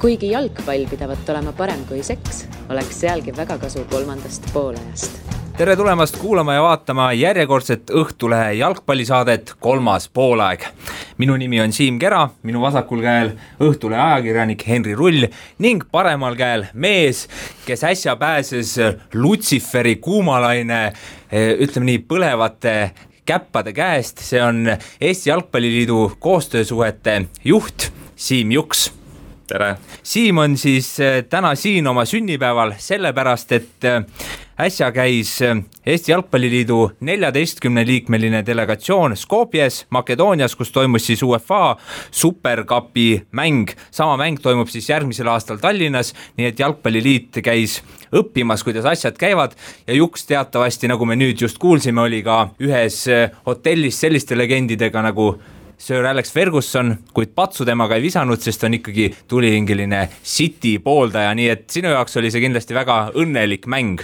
Kuigi jalgpall pidavat olema parem kui seks, oleks sealgi väga kasu kolmandast poolajast. Tere tulemast kuulama ja vaatama järjekordset Õhtulehe jalgpallisaadet Kolmas poolaeg. Minu nimi on Siim Kera, minu vasakul käel Õhtulehe ajakirjanik Henri Rull ning paremal käel mees, kes äsja pääses Lutsiferi kuumalaine, ütleme nii, põlevate käppade käest. See on Eesti Jalgpalliliidu koostöösuhete juht Siim Juks. Tere! Siim on siis täna siin oma sünnipäeval sellepärast, et äsja käis Eesti Jalgpalliliidu 14-liikmeline delegatsioon Skopjes, Makedoonias, kus toimus siis UEFA Supercupi mäng. Sama mäng toimub siis järgmisel aastal Tallinnas, nii et Jalgpalliliit käis õppimas, kuidas asjad käivad ja Juks teatavasti, nagu me nüüd just kuulsime, oli ka ühes hotellis selliste legendidega nagu Sir Alex Ferguson, kuid patsu temaga ei visanud, sest on ikkagi tulihingeline City pooldaja, nii et sinu jaoks oli see kindlasti väga õnnelik mäng.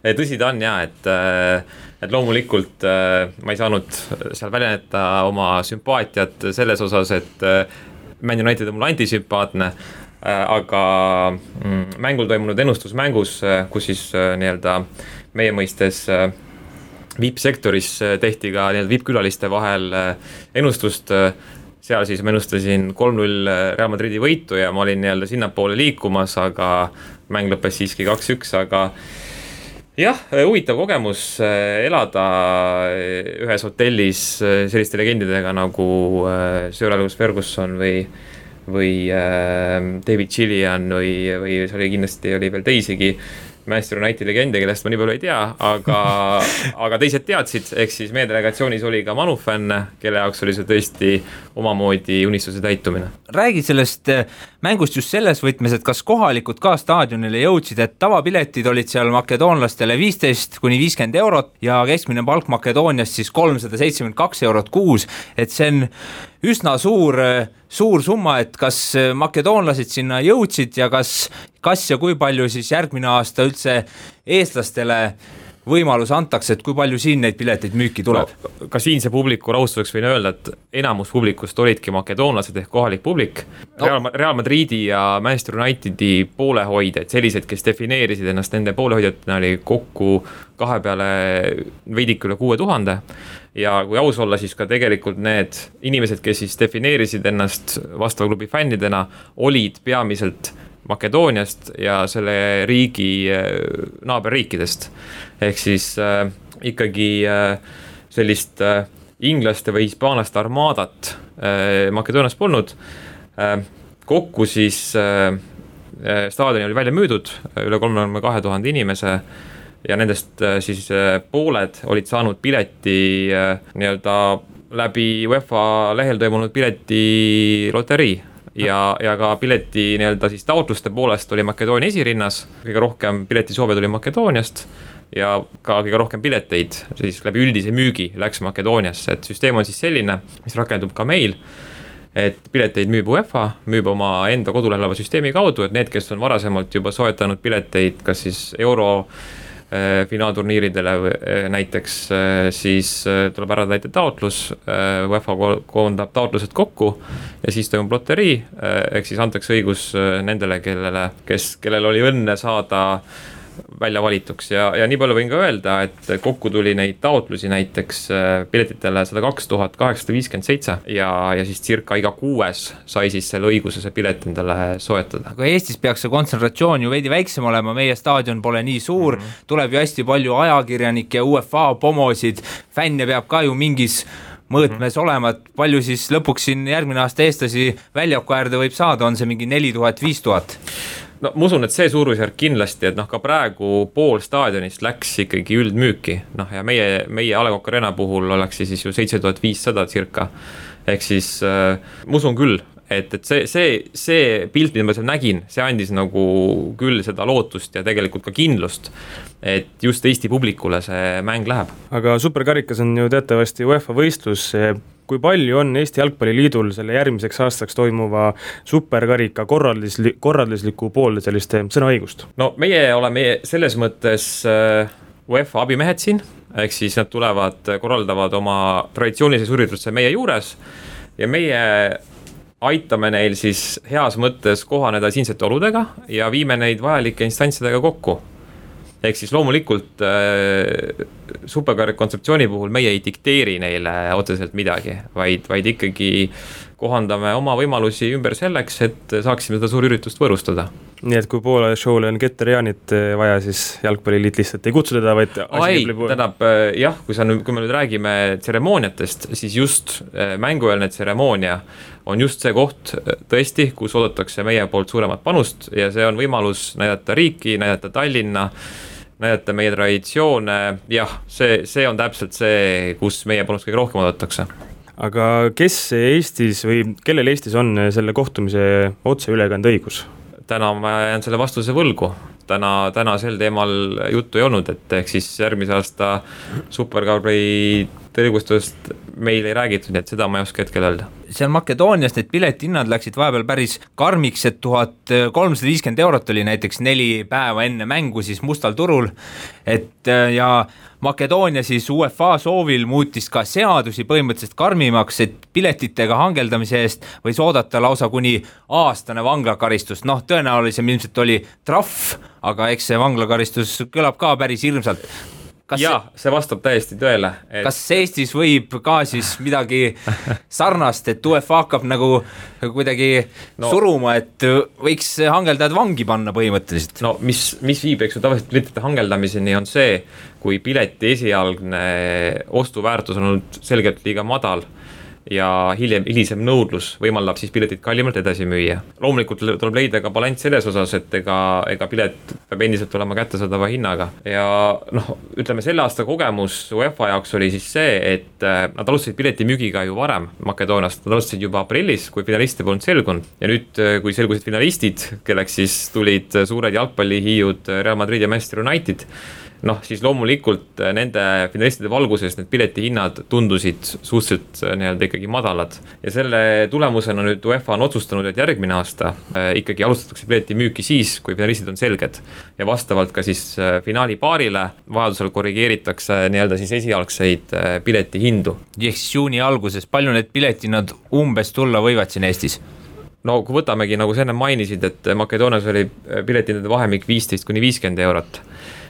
Tõsi ta on jah, et loomulikult ma ei saanud seal väljendada oma sümpaatiat selles osas, et Man United on mul antisümpaatne, aga mängul toimunud ennustusmängus, kus siis nii-öelda meie mõistes VIP-sektoris tehti ka VIP-külaliste vahel ennustust, seal siis ma ennustasin 3-0 Real Madridi võitu ja ma olin nii-öelda sinnapoole liikumas, aga mäng lõppes siiski 2-1, aga jah, huvitav kogemus elada ühes hotellis selliste legendidega nagu Sir Alex Ferguson või David Gillian või see oli kindlasti oli veel teisigi Manchester United legende, kellest ma nii palju ei tea, aga teised teadsid, ehk siis meie delegatsioonis oli ka Manu fänn, kelle jaoks oli see tõesti omamoodi unistuse täitumine. Räägi sellest mängust just selles võtmes, et kas kohalikud ka staadionile jõudsid, et tavapiletid olid seal makedoonlastele 15–50 eurot ja keskmine palk Makedoonias siis 372 eurot kuus, et see on üsna suur summa, et kas makedoonlased sinna jõudsid ja kas ja kui palju siis järgmine aasta üldse eestlastele võimalus antakse, et kui palju siin neid pileteid müüki tuleb? No, ka siinse publiku rahustuseks võin öelda, et enamus publikust olidki makedoonlased ehk kohalik publik. Real Madridi ja Manchester Unitedi poolehoidjad, sellised, kes defineerisid ennast nende poolehoidjatena, oli kokku kahe peale veidik üle 6000 ja kui aus olla, siis ka tegelikult need inimesed, kes siis defineerisid ennast vastava klubi fännidena, olid peamiselt Makedooniast ja selle riigi naaberriikidest. Ehk siis ikkagi sellist inglaste või hispaanlaste armaadat Makedoonias polnud. Kokku siis staadioni oli välja müüdud üle 32 000 inimese ja nendest siis pooled olid saanud pileti nii-öelda läbi UEFA lehel toimunud pileti loterii. Ja ka pileti nii-öelda siis taotluste poolest oli Makedoonia esirinnas, kõige rohkem piletisoove tuli Makedooniast ja ka kõige rohkem pileteid siis läbi üldise müügi läks Makedooniasse, et süsteem on siis selline, mis rakendub ka meil, et pileteid müüb UEFA, müüb oma enda kodulehel süsteemi kaudu, et need, kes on varasemalt juba soetanud pileteid, kas siis euro finaalturniiridele näiteks, siis tuleb ära täita taotlus, UEFA koondab taotlused kokku ja siis toimub loterii, ehk siis antakse õigus nendele, kellel oli õnne saada välja valituks ja nii palju võin ka öelda, et kokku tuli neid taotlusi näiteks piletitele 102 857 ja siis circa iga 6 sai siis selle õiguse see pilet endale soetada. Aga Eestis peaks see kontsentratsioon ju veidi väiksem olema, meie staadion pole nii suur, tuleb ju hästi palju ajakirjanikke ja UEFA pomosid, fänne peab ka ju mingis mõõtmes olema, et palju siis lõpuks siin järgmine aasta eestlasi väljaku äärde võib saada, on see mingi 4000, 5000? No ma usun, et see suurusjärk kindlasti, et ka praegu pool staadionist läks ikkagi üldmüüki, ja meie A. Le Coq Arena puhul oleks siis ju 7500 circa, ehk siis ma usun küll, et see pilt, mida ma seal nägin, see andis nagu küll seda lootust ja tegelikult ka kindlust, et just Eesti publikule see mäng läheb. Aga superkarikas on ju teatavasti UEFA võistlus. Kui palju on Eesti Jalgpalliliidul selle järgmiseks aastaks toimuva superkarika korraldusliku poolde selliste sõnaõigust? No meie oleme selles mõttes UEFA abimehed siin, ehk siis nad korraldavad oma traditsioonilise ürituse meie juures ja meie aitame neil siis heas mõttes kohaneda siinsete oludega ja viime neid vajalike instantsidega kokku. Ehk siis loomulikult superkarika kontseptsiooni puhul meie ei dikteeri neile otseselt midagi, vaid ikkagi kohandame oma võimalusi ümber selleks, et saaksime seda suurüritust võõrustada. Nii et kui Poola show'le on Keter-Jaanit vaja, siis jalgpalliliit lihtsalt ei kutsu teda, vaid tähendab jah, kui me nüüd räägime tseremooniatest, siis just mängueelne tseremoonia on just see koht tõesti, kus oodatakse meie poolt suuremat panust ja see on võimalus näidata riiki, näidata Tallinna, näidata meie traditsioone, jah, see on täpselt see, kus meie panust kõige rohkem oodatakse. Aga kes Eestis või kellel Eestis on selle kohtumise otseülekande õigus? Täna ma jään selle vastuse võlgu. Täna sel teemal juttu ei olnud, et ehk siis järgmise aasta superkarbi tõrgustust meil ei räägitud, nii et seda ma ei oska hetkel öelda. Seal Makedoonias need piletihinnad läksid vahepeal päris karmiks, et 1350 eurot oli näiteks 4 päeva enne mängu siis mustal turul, et ja Makedoonia siis UEFA soovil muutis ka seadusi põhimõtteliselt karmimaks, et piletitega hangeldamise eest võis oodata lausa kuni aastane vanglakaristus, noh tõenäolisem ilmselt oli trahv, aga eks see vanglakaristus kõlab ka päris hirmsalt. See vastab täiesti tõele. Kas Eestis võib ka siis midagi sarnast, et UEFA hakkab nagu kuidagi suruma, et võiks hangeldajad vangi panna põhimõtteliselt? No mis viib, eks ju, tavaliselt piletite hangeldamiseni on see, kui pileti esialgne ostuväärtus on olnud selgelt liiga madal ja hilisem nõudlus võimaldab siis piletit kallimalt edasi müüa. Loomulikult tuleb leida ka balanss selles osas, et ega pilet peab endiselt olema kättesaadava hinnaga. Ja ütleme, selle aasta kogemus UEFA jaoks oli siis see, et nad alustasid pileti müügiga ju varem Makedooniast. Nad alustasid juba aprillis, kui finaliste polnud selgunud. Ja nüüd, kui selgusid finalistid, kelleks siis tulid suured jalgpallihiiud Real Madrid ja Manchester United, siis loomulikult nende finalistide valguses need piletihinnad tundusid suhteliselt nii-öelda ikkagi madalad. Ja selle tulemusena nüüd UEFA on otsustanud, et järgmine aasta ikkagi alustatakse pileti müüki siis, kui finalistid on selged. Ja vastavalt ka siis finaali paarile vajadusel korrigeeritakse nii-öelda siis esialgseid piletihindu. Ehk siis juuni alguses, palju need piletihinnad umbes tulla võivad siin Eestis? No kui võtamegi, nagu sa enne mainisid, et Makedoonias oli piletihindade vahemik 15–50 eurot,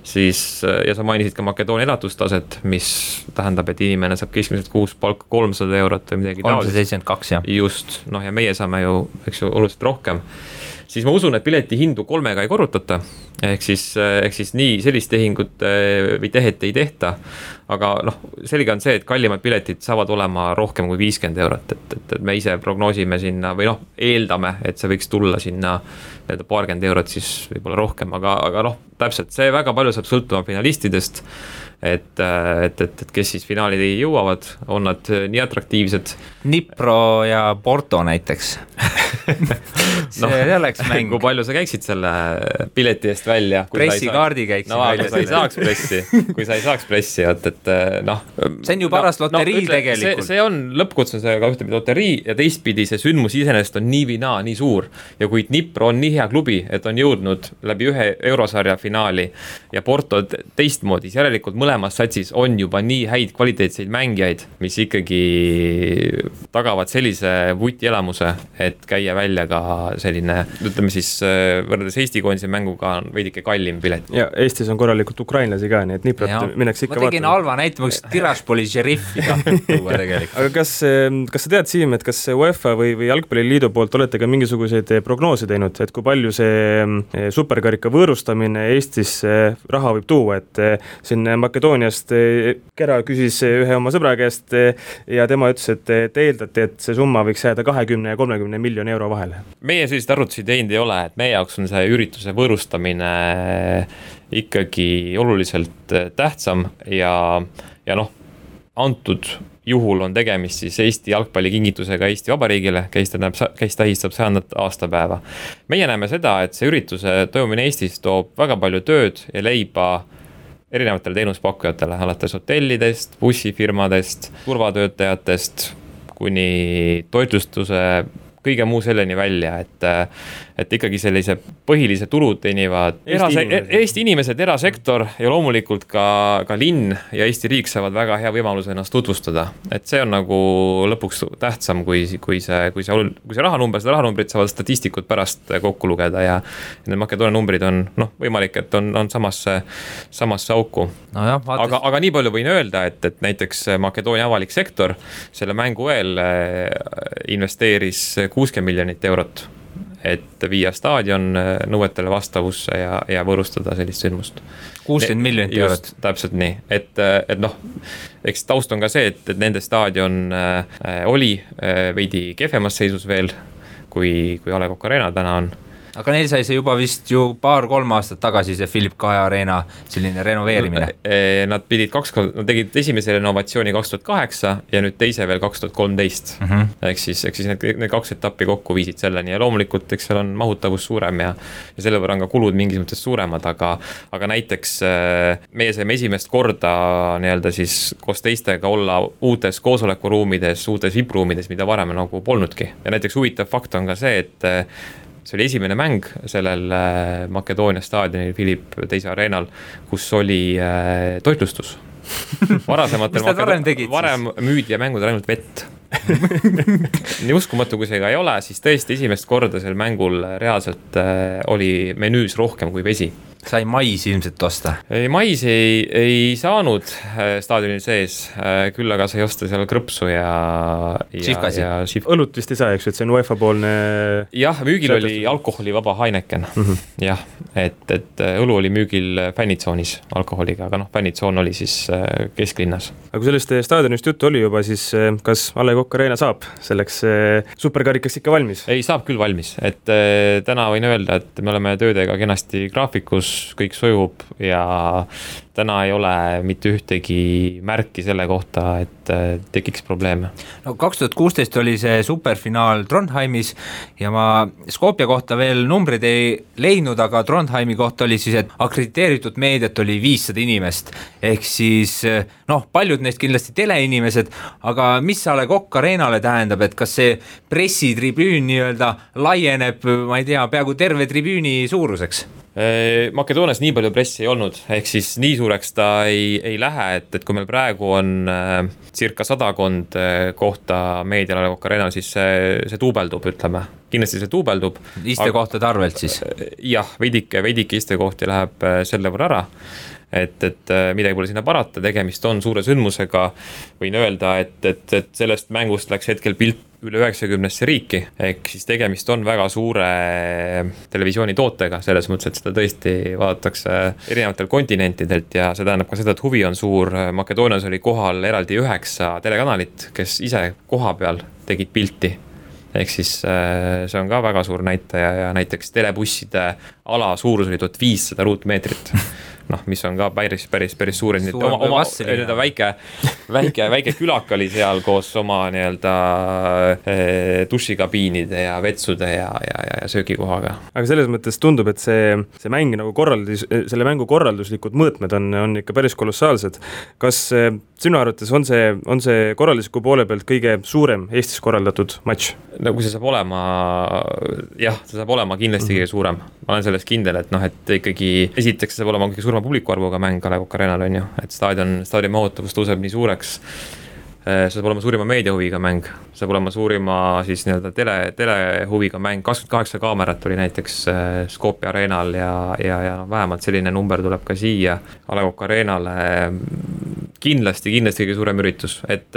siis, ja sa mainisid ka Makedoonia elatustaset, mis tähendab, et inimene saab keskmiselt kuus palka 300 eurot või midagi 372, jah. Just, ja meie saame ju, eks ju, oluliselt rohkem. Siis ma usun, et pileti hindu 3 ei korrutata, ehk siis nii sellist tehingut või tehet ei tehta, aga selge on see, et kallimad piletid saavad olema rohkem kui 50 eurot, et me ise prognoosime sinna või eeldame, et see võiks tulla sinna paarkümmend eurot siis võib-olla rohkem, aga täpselt see väga palju saab sõltuma finalistidest, et kes siis finaali jõuavad, on nad nii atraktiivsed. Dnipro ja Porto näiteks. See oleks mäng. Kui palju sa käiksid selle pileti eest välja? Pressikaardi käiksid välja. Kui sa ei saaks pressi, see on ju parast loterii tegelikult. See on lõppkutsusega ühtepidi loterii ja teistpidi see sündmus iseenesest on nii või naa nii suur. Ja kui Dnipro on nii hea klubi, et on jõudnud läbi ühe eurosarja finaali ja Porto teistmoodi, järelikult mõlemas satsis on juba nii häid kvaliteetseid mängijaid, mis ikkagi tagavad sellise vutielamuse, et käia välja ka selline, ütleme siis võrreldes Eesti koondise mänguga on veidike kallim pilet. Ja Eestis on korralikult ukrainlasi ka, nii et Dniprot mineks ikka vaatama. Ma tegin halva näitamaks Tiraspoli šeriffi tuua tegelikult. Aga kas sa tead, Siim, et kas UEFA või Jalgpalliliidu poolt olete ka mingisuguseid prognoose teinud, et kui palju see superkarika võõrustamine Eestis raha võib tuua, et siin Makedooniast Kera küsis ühe oma sõbra käest ja tema ütles, et eeldati, et see summa võiks jääda 20 ja 30 miljoni euro vahele. Meie sellised arvutusid teinud ei ole, et meie jaoks on see ürituse võõrustamine ikkagi oluliselt tähtsam ja antud juhul on tegemist siis Eesti jalgpallikingitusega Eesti Vabariigile, kes tähistab 100. aastapäeva. Meie näeme seda, et see ürituse toimumine Eestis toob väga palju tööd ja leiba erinevatele teenuspakkujatele, alates hotellidest, bussifirmadest, turvatöötajatest, kuni toitlustuse kõige muu selleni välja, et ikkagi sellise põhilise tulu teenivad Eesti inimesed, erasektor ja loomulikult ka linn ja Eesti riik saavad väga hea võimaluse ennast tutvustada. Et see on nagu lõpuks tähtsam, kui see rahanumber, seda rahanumbrit saavad statistikud pärast kokku lugeda ja need Makedoonia numbrid on võimalik, et on samasse auku. No jah, aga nii palju võin öelda, et näiteks Makedoonia avalik sektor selle mängu eel investeeris 60 miljonit eurot, et viia staadion nõuetele vastavusse ja võõrustada sellist sündmust. 60 miljonit eurot. Täpselt nii, et eks taust on ka see, et nende staadion oli veidi kehvemas seisus veel, kui A. Le Coq Arena täna on. Aga neil sai see juba vist ju 2-3 aastat tagasi see Philip Kaja Arena selline renoveerimine. Nad tegid esimese renovatsiooni 2008 ja nüüd teise veel 2013. Ehk siis need 2 etappi kokku viisid selleni ja loomulikult eks seal on mahutavus suurem ja selle võrra on ka kulud mingis mõttes suuremad, aga näiteks meie saime esimest korda nii-öelda siis koos teistega olla uutes koosolekuruumides, uutes VIP-ruumides, mida varem nagu polnudki. Ja näiteks huvitav fakt on ka see, et see oli esimene mäng sellel Makedoonia staadionil Philip II Arenal, kus oli toitlustus. Varem müüdi ja mängud ainult vett. Nii uskumatu, kui see ka ei ole, siis tõesti esimest korda sel mängul reaalselt oli menüüs rohkem kui vesi. Sai maisi ilmselt osta? Maisi ei saanud staadionil sees, küll aga sai osta seal krõpsu ja õlut vist ei saa, eks, et see on UEFA poolne. Jah, müügil oli alkoholivaba Heineken. Jah, et õlu oli müügil fännitsoonis alkoholiga, aga fännitsoon oli siis kesklinnas. Aga kui sellest staadionist juttu oli juba, siis kas A. Le Coq Arena saab selleks superkarikaks ikka valmis? Ei, saab küll valmis, et täna võin öelda, et me oleme töödega kenasti graafikus, kõik sujub ja täna ei ole mitte ühtegi märki selle kohta, et tekiks probleeme. No 2016 oli see superfinaal Trondheimis ja ma Skopje kohta veel numbrid ei leidnud, aga Trondheimi kohta oli siis, et akrediteeritud meediat oli 500 inimest. Ehk siis paljud neist kindlasti teleinimesed, aga mis A. Le Coq Arenale tähendab, et kas see pressitribüün nii-öelda laieneb, ma ei tea, peaaegu terve tribüüni suuruseks? Makedoonias nii palju pressi ei olnud, ehk siis nii suureks ta ei lähe, et kui meil praegu on circa 100 kohta meedial A. Le Coq Arenal, siis see tuubeldub, ütleme. Kindlasti see tuubeldub. Istekohtade arvelt siis? Jah, veidike istekohti läheb selle võrra ära. Et midagi pole sinna parata, tegemist on suure sündmusega, võin öelda, et sellest mängust läks hetkel pilt üle 90 riiki, ehk siis tegemist on väga suure televisioonitootega, selles mõttes, et seda tõesti vaadatakse erinevatel kontinentidelt ja see tähendab ka seda, et huvi on suur. Makedoonias oli kohal eraldi 9 telekanalit, kes ise koha peal tegid pilti. Ehk siis see on ka väga suur näitaja ja näiteks telebusside ala suurus oli 1500 ruutmeetrit. Mis on ka päris suur. Väike külak oli seal koos oma nii-öelda dušikabiinide ja vetsude ja söögikohaga. Aga selles mõttes tundub, et see mäng nagu selle mängu korralduslikud mõõtmed on ikka päris kolossaalsed. Kas sinu arvates on see korraldusliku poole pealt kõige suurem Eestis korraldatud matš? No kui see saab olema, jah, see saab olema kindlasti kõige suurem. Ma olen selles kindel, et ikkagi esiteks saab olema kõige suurema publikuarvuga mäng A. Le Coq Arenal on ju, et staadion mahutavus tõuseb nii suureks. See saab olema suurima meediahuviga mäng, saab olema suurima siis nii-öelda telehuviga mäng, 28 kaamerat oli näiteks Skopje Arenal ja vähemalt selline number tuleb ka siia A. Le Coq Arenale. Kindlasti kõige suurem üritus, et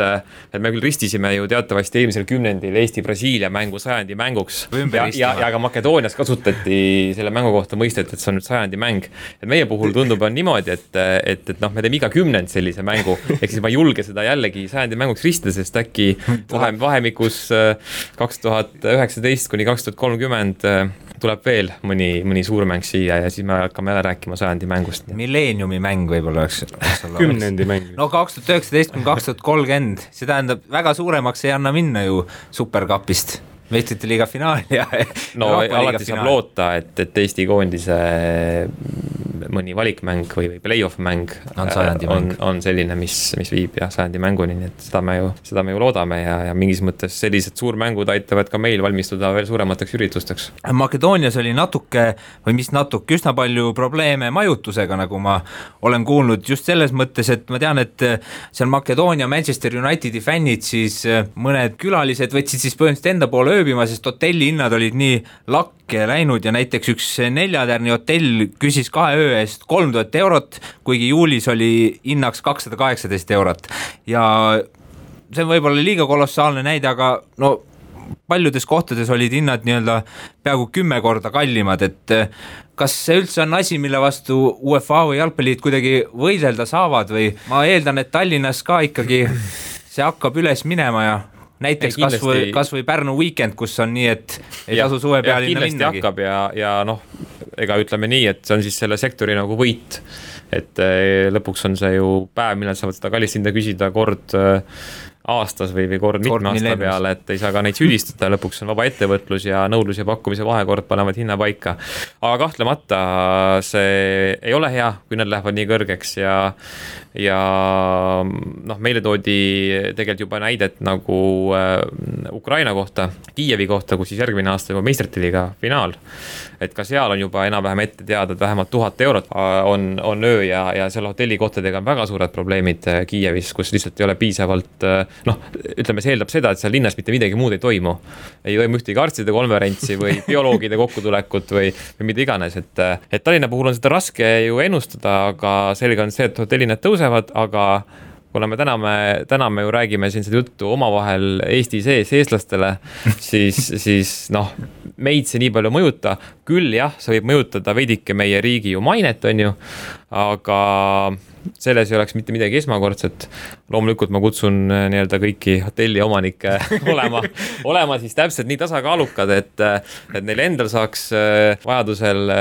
me küll ristisime ju teatavasti eelmisel kümnendil Eesti-Brasiilia mängu 100. mänguks ja ka Makedoonias kasutati selle mängu kohta mõistet, et see on nüüd 100. mäng. Et meie puhul tundub on niimoodi, et me teeme iga 10 sellise mängu, ehk siis ma ei julge seda jällegi 100. mänguks ristida, sest äkki vahemikus 2019 kuni 2030 tuleb veel mõni suur mäng siia ja siis me hakkame jälle rääkima 100. mängust. Millenniumi mäng võib-olla oleks 10. mäng. No 2019 kuni 2030, see tähendab väga suuremaks ei anna minna ju superkapist. Meistrite liiga finaal ja alati saab loota, et Eesti koondise mõni valikmäng või play-off mäng on selline, mis viib sajandi mänguni, nii et seda me ju loodame ja mingis mõttes sellised suurmängud aitavad ka meil valmistuda veel suuremateks üritusteks. Makedoonias oli üsna palju probleeme majutusega, nagu ma olen kuulnud, just selles mõttes, et ma tean, et seal Makedoonia Manchester Unitedi fännid siis mõned külalised võtsid siis põhimõtteliselt enda poole ööbima, sest hotelli hinnad olid nii lakke läinud ja näiteks üks 4-tärni hotell küsis 2 öö eest 3000 eurot, kuigi juulis oli hinnaks 218 eurot ja see on võib-olla liiga kolossaalne näide, aga no paljudes kohtades olid hinnad nii-öelda peaaegu 10 korda kallimad, et kas see üldse on asi, mille vastu UEFA või jalgpalliliit kuidagi võidelda saavad või ma eeldan, et Tallinnas ka ikkagi see hakkab üles minema ja näiteks kas või Pärnu Weekend, kus on nii, et ei tasu suve pealinna minnagi. Kindlasti hakkab ja noh, ega ütleme nii, et see on siis selle sektori nagu võit, et lõpuks on see ju päev, millal saavad seda kallist hinda küsida kord aastas või kord mitme aasta peale, et ei saa ka neid süüdistada, lõpuks on vaba ettevõtlus ja nõudlus ja pakkumise vahekord panevad hinna paika. Aga kahtlemata see ei ole hea, kui nad lähevad nii kõrgeks ja noh, meile toodi tegelikult juba näidet nagu Ukraina kohta, Kiievi kohta, kus siis järgmine aasta juba meistrite liiga finaal, et ka seal on juba enam-vähem ette teada, et vähemalt 1000 eurot on öö ja seal hotellikohtadega on väga suured probleemid Kiievis, kus lihtsalt ei ole piisavalt noh, ütleme, see eeldab seda, et seal linnas mitte midagi muud ei toimu ühtegi arstide konverentsi või bioloogide kokkutulekut või mida iganes, et Tallinna puhul on seda raske ju ennustada, aga selge on see, et hotellinad tõusevad, aga kuna me täna me ju räägime siin seda juttu omavahel Eesti sees eestlastele, siis noh, meid see nii palju mõjuta, küll jah, see võib mõjutada veidike meie riigi ju mainet, on ju, aga selles ei oleks mitte midagi esmakordset. Loomulikult ma kutsun nii-öelda kõiki hotelli omanikke olema siis täpselt nii tasakaalukad, et neil endal saaks vajadusel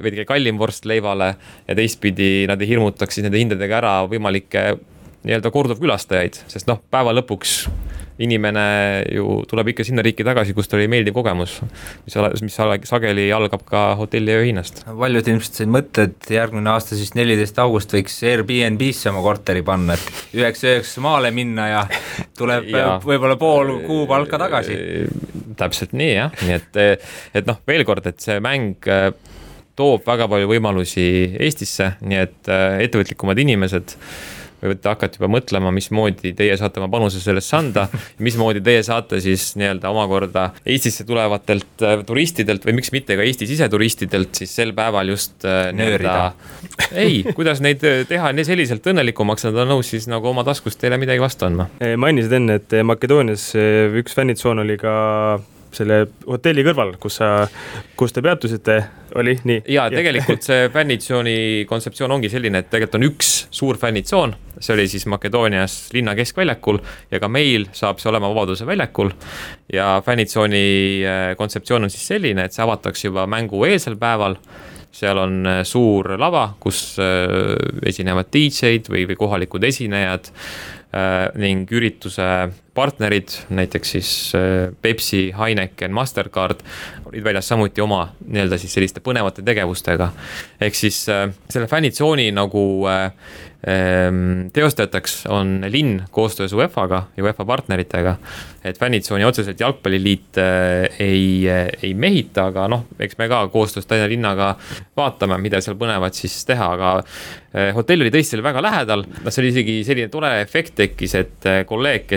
veidike kallim vorst leivale ja teistpidi nad ei hirmutaks siis nende hindadega ära võimalikke nii-öelda korduvkülastajaid, sest noh, päeva lõpuks inimene ju tuleb ikka sinna riiki tagasi, kus ta oli meeldiv kogemus, mis sageli algab ka hotelli ööhinnast. Paljud ilmselt said mõtte, et järgmine aasta siis 14. august võiks Airbnb-sse oma korteri panna, et 9 maale minna ja tuleb võib-olla pool kuu palka tagasi. Täpselt nii, jah. Nii et noh, veel kord, et see mäng toob väga palju võimalusi Eestisse, nii et ettevõtlikumad inimesed võite hakata juba mõtlema, mismoodi teie saate oma panuse sellest anda, mismoodi teie saate siis nii-öelda omakorda Eestisse tulevatelt turistidelt või miks mitte ka Eesti siseturistidelt siis sel päeval just kuidas neid teha nii selliselt õnnelikumaks, nad on nõus siis nagu oma taskust teile midagi vastu andma. Mainisid enne, et Makedoonias üks fännitsoon oli ka selle hotelli kõrval, kus te peatusite, oli nii? Ja tegelikult see fännitsooni kontseptsioon ongi selline, et tegelikult on üks suur fännitsoon, see oli siis Makedoonias linna keskväljakul ja ka meil saab see olema Vabaduse väljakul ja fännitsooni kontseptsioon on siis selline, et see avatakse juba mängu eelsel päeval, seal on suur lava, kus esinevad DJ-d või kohalikud esinejad ning ürituse partnerid, näiteks siis Pepsi, Heineken, Mastercard olid väljas samuti oma nii-öelda siis selliste põnevate tegevustega. Ehk siis selle fännitsooni nagu teostajateks on linn koostöös UEFA-ga ja UEFA partneritega, et fännitsooni otseselt jalgpalliliit ei mehita, aga noh, eks me ka koostöös Tallinna linnaga vaatame, mida seal põnevad siis teha, aga hotell oli tõesti väga lähedal, see oli isegi selline tore efekt tekkis, et kolleeg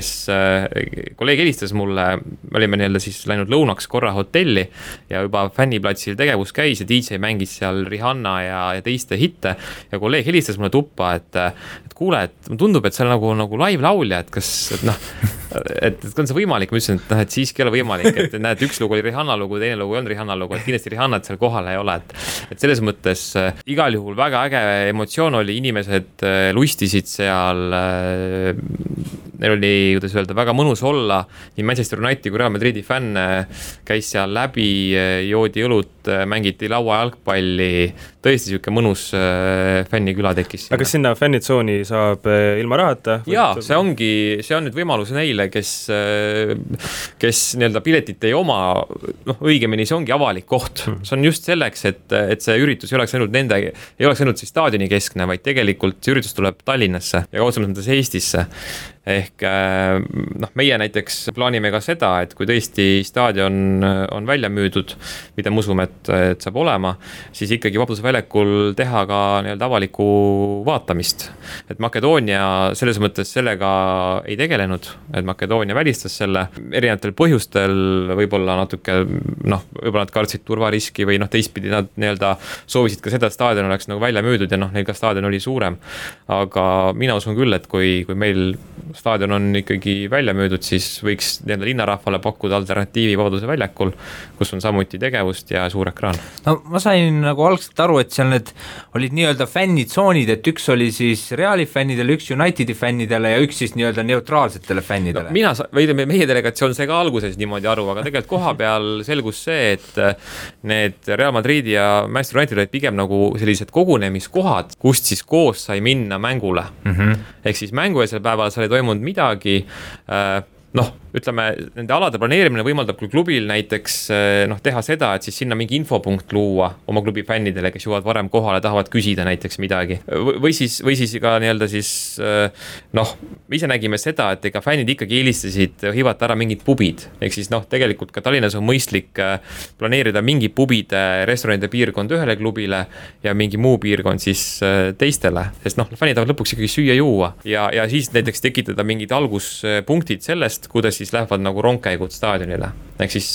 helistas mulle, me olime nii-öelda siis läinud lõunaks korra hotelli ja juba fänniplatsil tegevus käis ja DJ mängis seal Rihanna ja teiste hitte ja kolleeg helistas mulle tuppa, et kuule, et tundub, et seal nagu live laulja, et kas, et on see võimalik, ma ütlesin, et siiski ei ole võimalik, et näed, üks lugu oli Rihanna lugu, teine lugu ei olnud Rihanna lugu, et kindlasti Rihannat seal kohal ei ole, et selles mõttes igal juhul väga äge emotsioon oli, inimesed lustisid seal, neil oli, kuidas öelda, väga mõnus olla, nii Manchester Unitedi kui Real Madridi fänn käis seal läbi, joodi õlut, mängiti lauajalgpalli, tõesti siuke mõnus fänniküla tekkis. Aga kas sinna fännitsooni saab ilma rahata? Jaa, see on nüüd võimalus neile, neile, kes nii-öelda piletit ei oma, noh, õigemini see ongi avalik koht. See on just selleks, et see üritus ei oleks ainult siis staadioni keskne, vaid tegelikult see üritus tuleb Tallinnasse ja kaudsemalt mõttes Eestisse. Ehk noh, meie näiteks plaanime ka seda, et kui tõesti staadion on välja müüdud, mida me usume, et saab olema, siis ikkagi Vabaduse väljakul teha ka nii-öelda avalikku vaatamist. Et Makedoonia selles mõttes sellega ei tegelenud, et Makedoonia välistas selle erinevatel põhjustel, võib-olla natuke, noh, võib-olla nad kartsid turvariski või noh, teistpidi nad nii-öelda soovisid ka seda, et staadion oleks nagu välja müüdud ja noh, neil ka staadion oli suurem. Aga mina usun küll, et kui meil staadion on ikkagi välja müüdud, siis võiks nii-öelda linnarahvale pakkuda alternatiivi Vabaduse väljakul, kus on samuti tegevust ja suur ekraan. No ma sain nagu algselt aru, et seal need olid nii-öelda fännitsoonid, et üks oli siis Reali fännidele, üks Unitedi fännidele ja üks siis nii-öelda neutraalsetele fännidele. No, meie delegatsioon sai ka alguses niimoodi aru, aga tegelikult koha peal selgus see, et need Real Madridi ja Manchester United olid pigem nagu sellised kogunemiskohad, kust siis koos sai minna mängule. Ehk siis mängueelsel päeval sai toimunud midagi, noh, ütleme, nende alade planeerimine võimaldab küll klubil näiteks noh, teha seda, et siis sinna mingi infopunkt luua oma klubi fännidele, kes jõuavad varem kohale, tahavad küsida näiteks midagi. Või siis ka nii-öelda siis noh, me ise nägime seda, et ega fännid ikkagi eelistasid hivata ära mingid pubid. Ehk siis noh, tegelikult ka Tallinnas on mõistlik planeerida mingi pubide, restoranide piirkond ühele klubile ja mingi muu piirkond siis teistele. Sest noh, fännid tahavad lõpuks ikkagi süüa juua ja siis näiteks tekitada mingid alguspunktid sellest, kuidas siis lähevad nagu rongkäigud staadionile. Ehk siis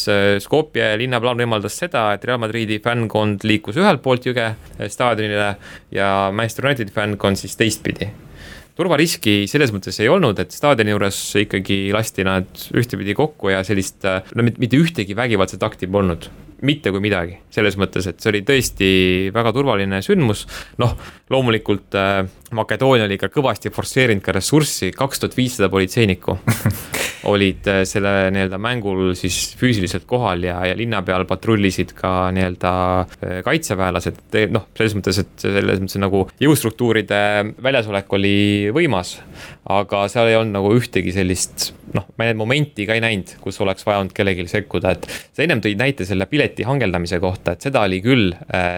Skopje linnaplaan võimaldas seda, et Real Madridi fännkond liikus ühelt poolt jõge staadionile ja Manchester United fännkond siis teistpidi. Turvariski selles mõttes ei olnud, et staadioni juures ikkagi lasti nad ühtepidi kokku ja sellist, no mitte ühtegi vägivaldset akti polnud. Mitte kui midagi, selles mõttes, et see oli tõesti väga turvaline sündmus. Noh, loomulikult Makedoonia oli ka kõvasti forsseerinud ka ressurssi, 2500 politseinikku olid selle nii-öelda mängul siis füüsiliselt kohal ja linna peal patrullisid ka nii-öelda kaitseväelased. Noh, selles mõttes nagu jõustruktuuride väljasolek oli võimas, aga seal ei olnud nagu ühtegi sellist, noh, ma need momenti ka ei näinud, kus oleks vajanud kellelgi sekkuda, et sa ennem tõid näite selle pileti hangeldamise kohta, et seda oli küll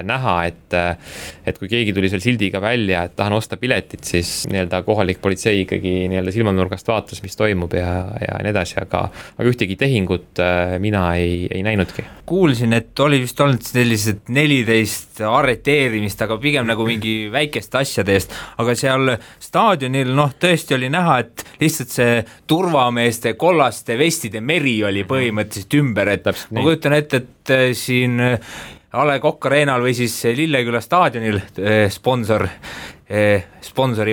näha, et kui keegi tuli seal sildiga välja, et tahan osta piletit, siis nii-öelda kohalik politsei ikkagi nii-öelda silmanurgast vaatas, mis toimub ja nii edasi, aga ühtegi tehingut mina ei näinudki. Kuulsin, et oli vist olnud sellised 14 arreteerimist, aga pigem nagu mingi väikeste asjade eest, aga seal staadionil noh, tõesti oli näha, et lihtsalt see turvameeste kollaste vestide meri oli põhimõtteliselt ümber, et ma kujutan ette, et siin A. Le Coq Arenal või siis Lilleküla staadionil sponsori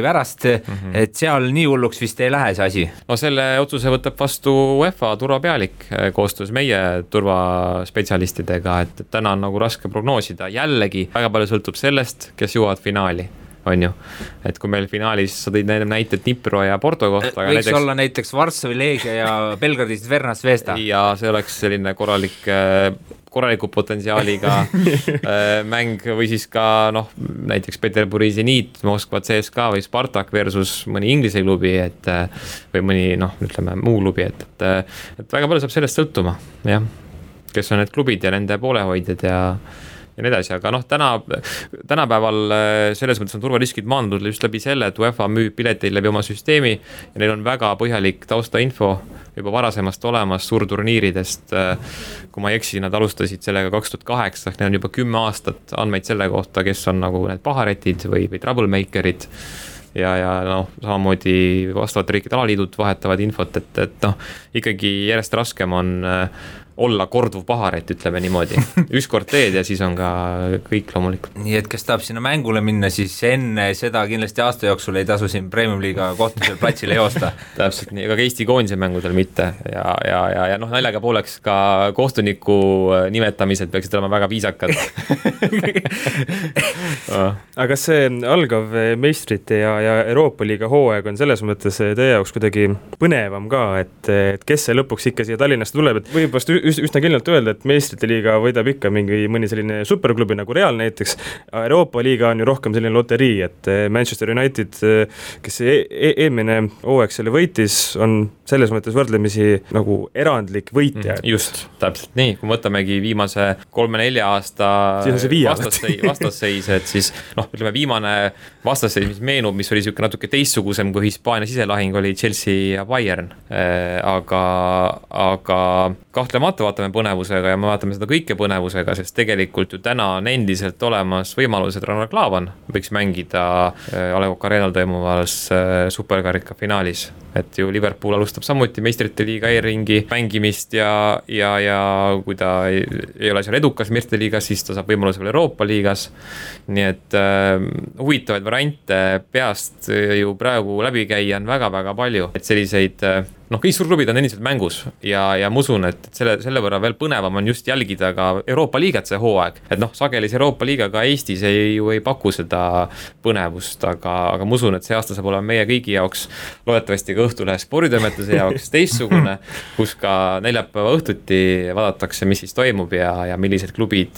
pärast, et seal nii hulluks vist ei lähe see asi. No selle otsuse võtab vastu UEFA turvapealik koostöös meie turvaspetsialistidega, et täna on nagu raske prognoosida. Jällegi väga palju sõltub sellest, kes jõuavad finaali. On ju, et kui meil finaalis sa tõid näited Dnipro ja Porto kohta. Võiks olla näiteks Varssavi Leegia ja Belgradis Vernas Zvezda. Ja see oleks selline korraliku potentsiaaliga mäng või siis ka noh, näiteks Peterburi Zenit, Moskva CSKA või Spartak versus mõni Inglise klubi, või mõni noh, ütleme muu klubi, et väga palju saab sellest sõltuma, jah, kes on need klubid ja nende poolehoidjad ja nii edasi, aga noh, tänapäeval selles mõttes on turvariskid maandunud just läbi selle, et UEFA müüb pileteid läbi oma süsteemi ja neil on väga põhjalik taustainfo juba varasemast olemas suurturniiridest. Kui ma ei eksi, nad alustasid sellega 2008, neil on juba 10 aastat andmeid selle kohta, kes on nagu need paharetid või troublemakerid ja noh, samamoodi vastavate riikide alaliidud vahetavad infot, et noh, ikkagi järjest raskem on olla korduv paharet, ütleme niimoodi. Ükskord teed ja siis on ka kõik loomulikult. Nii et kes tahab sinna mängule minna, siis enne seda kindlasti aasta jooksul ei tasu siin Premium-liiga kohtusel platsile joosta. Täpselt nii, aga Eesti koondise mängudel mitte ja noh, naljaga pooleks ka kohtuniku nimetamised peaksid olema väga viisakad. aga see algav meistrite ja Euroopa liiga hooaeg on selles mõttes teie jaoks kuidagi põnevam ka, et kes see lõpuks ikka siia Tallinnasse tuleb, et võib vast üsna kindlalt öelda, et meistrite liiga võidab ikka mõni selline superklubi nagu Real näiteks. Euroopa liiga on ju rohkem selline loterii, et Manchester United, kes eelmine hooaeg selle võitis, on selles mõttes võrdlemisi nagu erandlik võitja. Just, täpselt nii, kui võtamegi viimase 3-4 aasta vastasseis, et siis ütleme viimane vastasseis, mis meenub, mis oli siuke natuke teistsugusem kui Hispaania siselahing, oli Chelsea ja Bayern, aga kahtlemata vaatame põnevusega ja me vaatame seda kõike põnevusega, sest tegelikult ju täna on endiselt olemas võimalus, et Rannar Klaavan võiks mängida A Le Coq Arena'l toimuvas superkarika finaalis, et ju Liverpool alustab samuti meistrite liiga e-ringi mängimist ja kui ta ei ole seal edukas meistrite liigas, siis ta saab võimaluse veel Euroopa liigas, nii et huvitavaid variante peast ju praegu läbi käia on väga-väga palju, et selliseid kõik suurklubid on endiselt mängus ja ma usun, et selle võrra veel põnevam on just jälgida ka Euroopa liigat see hooaeg, et sagelis Euroopa liiga ka Eestis ju ei paku seda põnevust, aga ma usun, et see aasta saab olema meie kõigi jaoks, loodetavasti ka Õhtulehe sporditoimetuse jaoks teistsugune, kus ka neljapäeva õhtuti vaadatakse, mis siis toimub ja millised klubid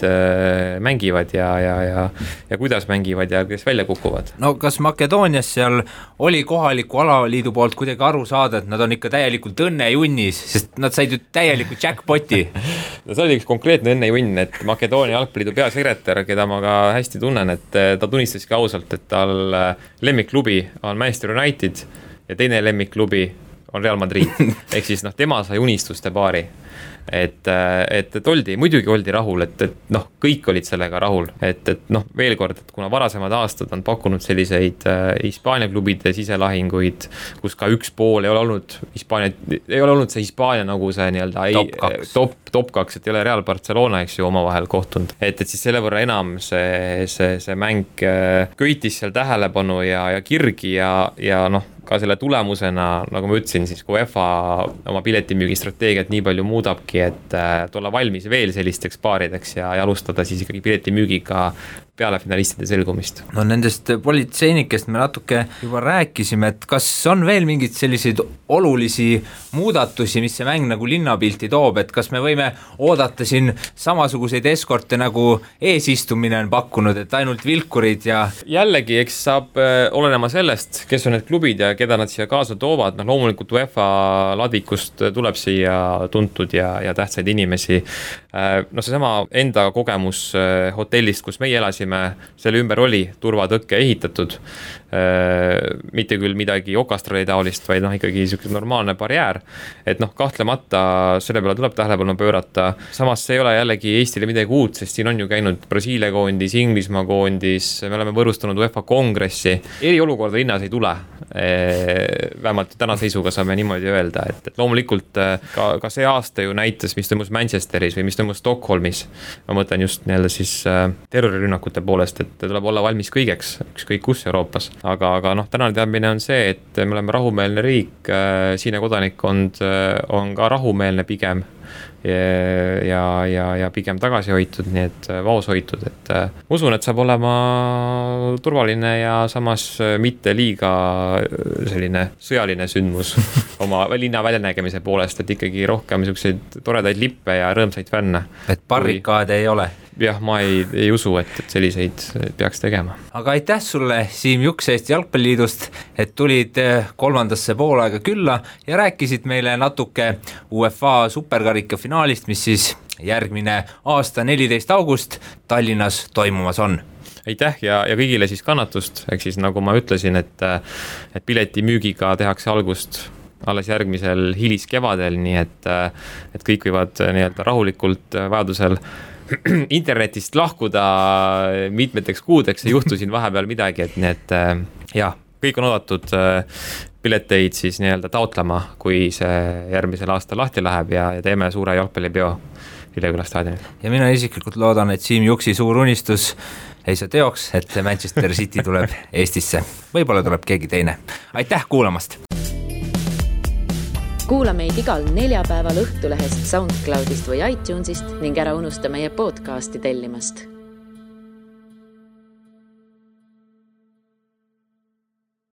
mängivad ja kuidas mängivad ja kes välja kukuvad. No kas Makedoonias seal oli kohaliku alaliidu poolt kuidagi aru saada, et nad on ikka täielikult õnnejunnis, sest nad said ju täielikult jackpoti. No see oli üks konkreetne õnnejunn, et Makedoonia jalgpalliliidu peasekretär, keda ma ka hästi tunnen, et ta tunnistaski ausalt, et tal lemmikklubi on Manchester United ja teine lemmikklubi on Real Madrid. Ehk siis tema sai unistuste paari. Et muidugi oldi rahul, et kõik olid sellega rahul, et veel kord, et kuna varasemad aastad on pakkunud selliseid Hispaania klubide siselahinguid, kus ka üks pool ei ole olnud see Hispaania nagu see nii-öelda top 2, et ei ole Real Barcelona, eks ju, omavahel kohtunud, et siis selle võrra enam see mäng köitis seal tähelepanu ja kirgi ja ka selle tulemusena, nagu ma ütlesin, siis kui UEFA oma piletimüügi strateegiat nii palju muudabki, et olla valmis veel sellisteks paarideks ja alustada siis ikkagi piletimüügiga peale finalistide selgumist. No nendest politseinikest me natuke juba rääkisime, et kas on veel mingid selliseid olulisi muudatusi, mis see mäng nagu linnapilti toob, et kas me võime oodata siin samasuguseid eskorte nagu eesistumine on pakkunud, et ainult vilkurid ja jällegi, eks saab olenema sellest, kes on need klubid ja keda nad siia kaasa toovad, loomulikult UEFA ladvikust tuleb siia tuntud ja tähtsaid inimesi. Seesama enda kogemus hotellist, kus meie elasime, selle ümber oli turvatõkke ehitatud, mitte küll midagi okastrali taolist, vaid ikkagi niisugune normaalne barjäär, et kahtlemata selle peale tuleb tähelepanu pöörata. Samas see ei ole jällegi Eestile midagi uut, sest siin on ju käinud Brasiilia koondis, Inglismaa koondis, me oleme võrustanud UEFA kongressi, eriolukorda linnas ei tule, vähemalt täna seisuga saame niimoodi öelda, et loomulikult ka see aasta ju näitas, mis toimus Manchesteris või mis toimus Stockholmis, ma mõtlen just nii-öelda siis terrorirünnakute poolest, et tuleb olla valmis kõigeks, ükskõik kus Euroopas. Aga tänane teadmine on see, et me oleme rahumeelne riik, siine kodanikkond on ka rahumeelne pigem ja pigem tagasi hoitud, nii et vaos hoitud, et usun, et saab olema turvaline ja samas mitte liiga selline sõjaline sündmus oma linna väljanägemise poolest, et ikkagi rohkem selliseid toredaid lippe ja rõõmsaid fänne. Et barrikaade ei ole? Jah, ma ei usu, et selliseid peaks tegema. Aga aitäh sulle, Siim Juks Eesti Jalgpalliliidust, et tulid kolmandasse poolaega külla ja rääkisid meile natuke UEFA superkarika finaalist, mis siis järgmine aasta 14. august Tallinnas toimumas on. Aitäh ja kõigile siis kannatust, ehk siis nagu ma ütlesin, et piletimüügiga tehakse algust alles järgmisel hiliskevadel, nii et kõik võivad nii-öelda rahulikult vajadusel internetist lahkuda mitmeteks kuudeks, ei juhtu siin vahepeal midagi, et nii et kõik on oodatud pileteid siis nii-öelda taotlema, kui see järgmisel aastal lahti läheb ja teeme suure jalgpallipeo Lilleküla staadionil. Ja mina isiklikult loodan, et Siim Juksi suur unistus ei saa teoks, et Manchester City tuleb Eestisse. Võib-olla tuleb keegi teine. Aitäh kuulamast! Kuula meid igal neljapäeval Õhtulehest, SoundCloudist või iTunesist ning ära unusta meie podcasti tellimast.